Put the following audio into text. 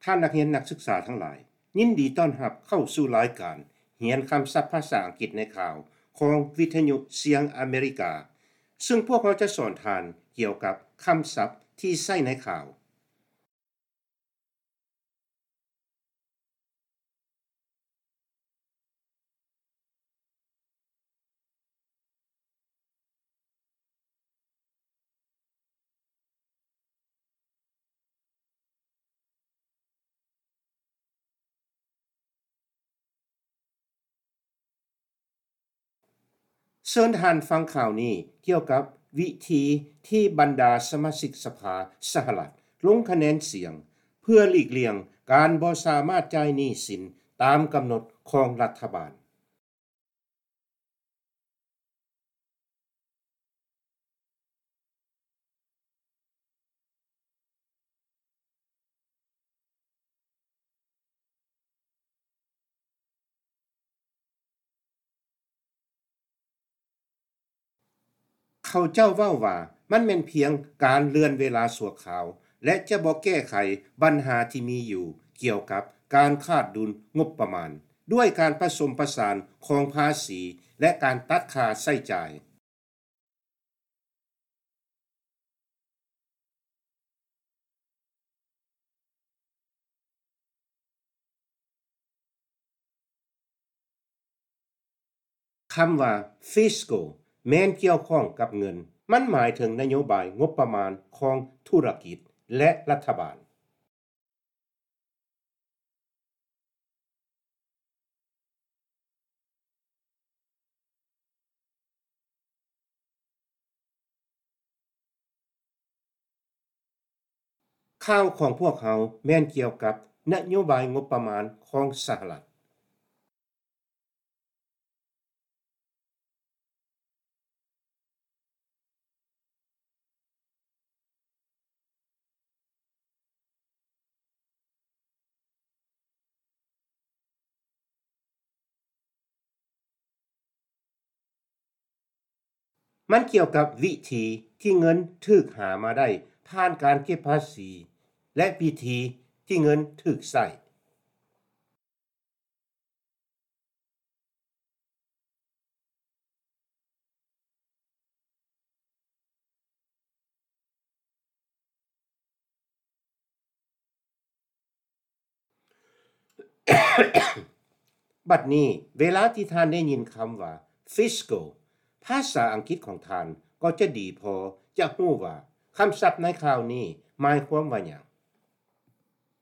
ທ່ານນັກຮຽນນັກສຶກສາທັງຫຼາຍ, ຍິນດີຕ້ອນຮັບເຂົ້າສູ່ລາຍການຮຽນຄຳສັບພາສາອັງກິດໃນຂ່າວຂອງວິທະຍຸສຽງອາເມລິກາ, ເຊິ່ງພວກເຮົາຈະສອນທ່ານກ່ຽວກັບຄຳສັບທີ່ໃຊ້ໃນຂ່າວ. ເຊີນທ່ານຟັງຂ່າວນີ້ກ່ຽວກັບວິທີທີ່ບັນດາສະມາຊິກສະພາສະຫະລັດລົງຄະແນນສຽງ ເພື່ອຫຼີກລ່ຽງການບໍ່ສາມາດຈ່າຍໜີ້ສິນຕາມກຳນົດຂອງລັດຖະບານ. ເຂົາເຈົ້າເວົ້າວ່າມັນແມ່ນພຽງການເລື່ອນເວລາຊົ່ວຄາວ ແລະ ຈະບໍ່ແກ້ໄຂບັນຫາທີ່ມີຢູ່ກ່ຽວກັບການຂາດດຸນງົບປະມານ ດ້ວຍການປະສົມປະສານຂອງພາສີ ແລະ ການຕັດຄ່າໃຊ້ຈ່າຍ. ຄຳວ່າ Fiscal ແມ່ນກ່ຽວຂ້ອງກັບເງິນ. ມັນໝາຍເຖິງນະໂຍບາຍງົບປະມານຂອງທຸລະກິດ ແລະ ລັດຖະບານ. ຂ່າວຂອງພວກເຮົາແມ່ນກ່ຽວກັບນະໂຍບາຍງົບປະມານຂອງສະຫະລັດ. ມັນກ່ຽວກັບວິທີທີ່ເງິນຖືກຫາມາໄດ້ຜ່ານການເກັບພາສີ ແລະ ວິທີທີ່ເງິນຖືກໃຊ້. ບັດນີ້, ເວລາທີ່ທ່ານໄດ້ຍິນຄຳວ່າ Fiscal, ພາສາອັງກິດຂອງທ່ານກໍຈະດີພໍຈະຮູ້ວ່າຄຳສັບໃນຂ່າວນີ້ໝາຍຄວາມວ່າຫຍັງ.